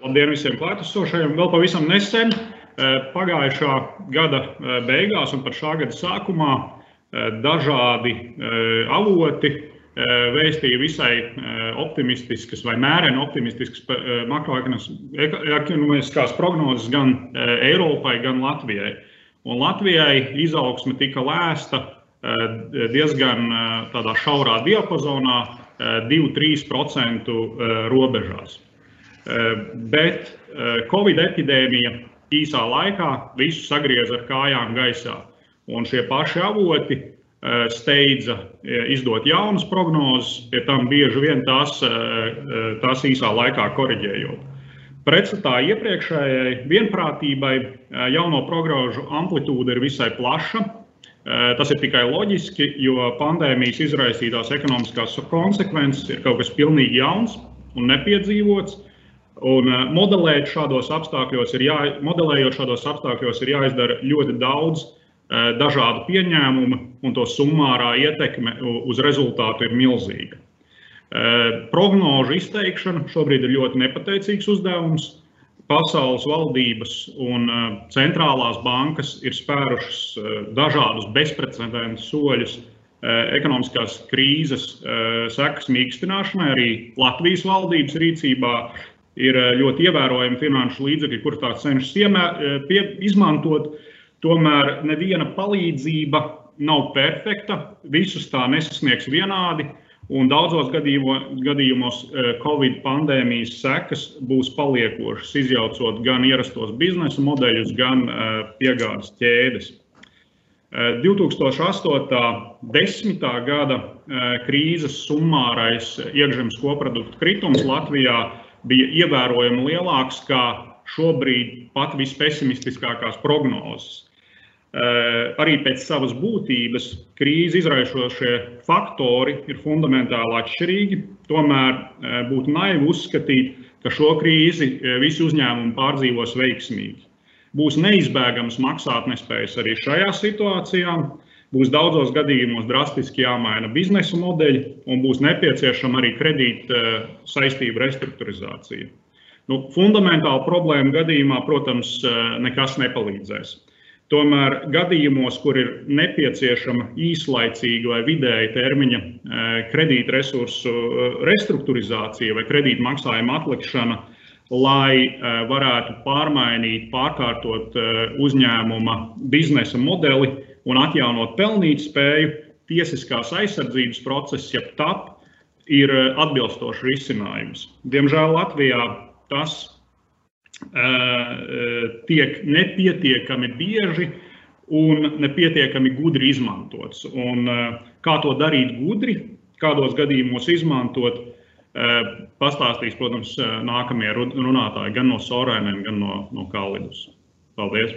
Labdien visiem klātesošajiem. Vēl pavisam nesen, pagājušā gada beigās un pat šā gada sākumā dažādi avoti vēstīja visai optimistiskas vai mēreni optimistiskas makroekonomiskās prognozes gan Eiropai, gan Latvijai. Un Latvijai izaugsme tika lēsta diezgan tādā šaurā diapazonā, 2–3% robežās. Bet Covid epidēmija īsā laikā visu sagrieza ar kājām gaisā. Un šie paši avoti steidza izdot jaunas prognozes, pie tam bieži vien tās īsā laikā koriģējot. Pretstatā iepriekšējai vienprātībai jauno prognožu amplitūda ir visai plaša. Tas ir tikai loģiski, jo pandēmijas izraisītās ekonomiskās konsekvences ir kaut kas pilnīgi jauns un nepiedzīvots. Un modelējot šādos apstākļos ir jāizdara ļoti daudz dažādu pieņēmumu, un to summārā ietekme uz rezultātu ir milzīga. Prognožu izteikšana šobrīd ir ļoti nepateicīgs uzdevums. Pasaules valdības un centrālās bankas ir spērušas dažādus bezprecedenta soļus ekonomiskās krīzes sekas mīkstināšanai. Arī Latvijas valdības rīcībā ir ļoti ievērojami finanšu līdzekļi, kur tā cenšas izmantot. Tomēr neviena palīdzība nav perfekta, visus tā nesasniegs vienādi. Un daudzos gadījumos Covid pandēmijas sekas būs paliekošas, izjaucot gan ierastos biznesa modeļus, gan piegādes ķēdes. 2008.–10. gada krīzes summārais iekšzemes koprodukta kritums Latvijā bija ievērojami lielāks kā šobrīd pat vispesimistiskākās prognozes. Arī pēc savas būtības krīzi izraisošie faktori ir fundamentāli atšķirīgi, tomēr būtu naivi uzskatīt, ka šo krīzi visi uzņēmumi pārdzīvos veiksmīgi. Būs neizbēgams maksātnespējas arī šajā situācijā, būs daudzos gadījumos drastiski jāmaina biznesa modeļi un būs nepieciešama arī kredīta saistību restruktūrizācija. Fundamentāla problēma gadījumā, protams, nekas nepalīdzēs. Tomēr gadījumos, kur ir nepieciešama īslaicīga vai vidēja termiņa kredīta resursu restruktūrizācija vai kredīta maksājuma atlikšana, lai varētu pārkārtot uzņēmuma biznesa modeli un atjaunot pelnītspēju, tiesiskās aizsardzības process, jeb TAP, ir atbilstošs risinājums. Diemžēl Latvijā tas tiek nepietiekami bieži un nepietiekami gudri izmantots. Un kā to darīt gudri, kādos gadījumos izmantot, pastāstīs, protams, nākamie runātāji gan no Sorainen, gan no Kalidus. Paldies!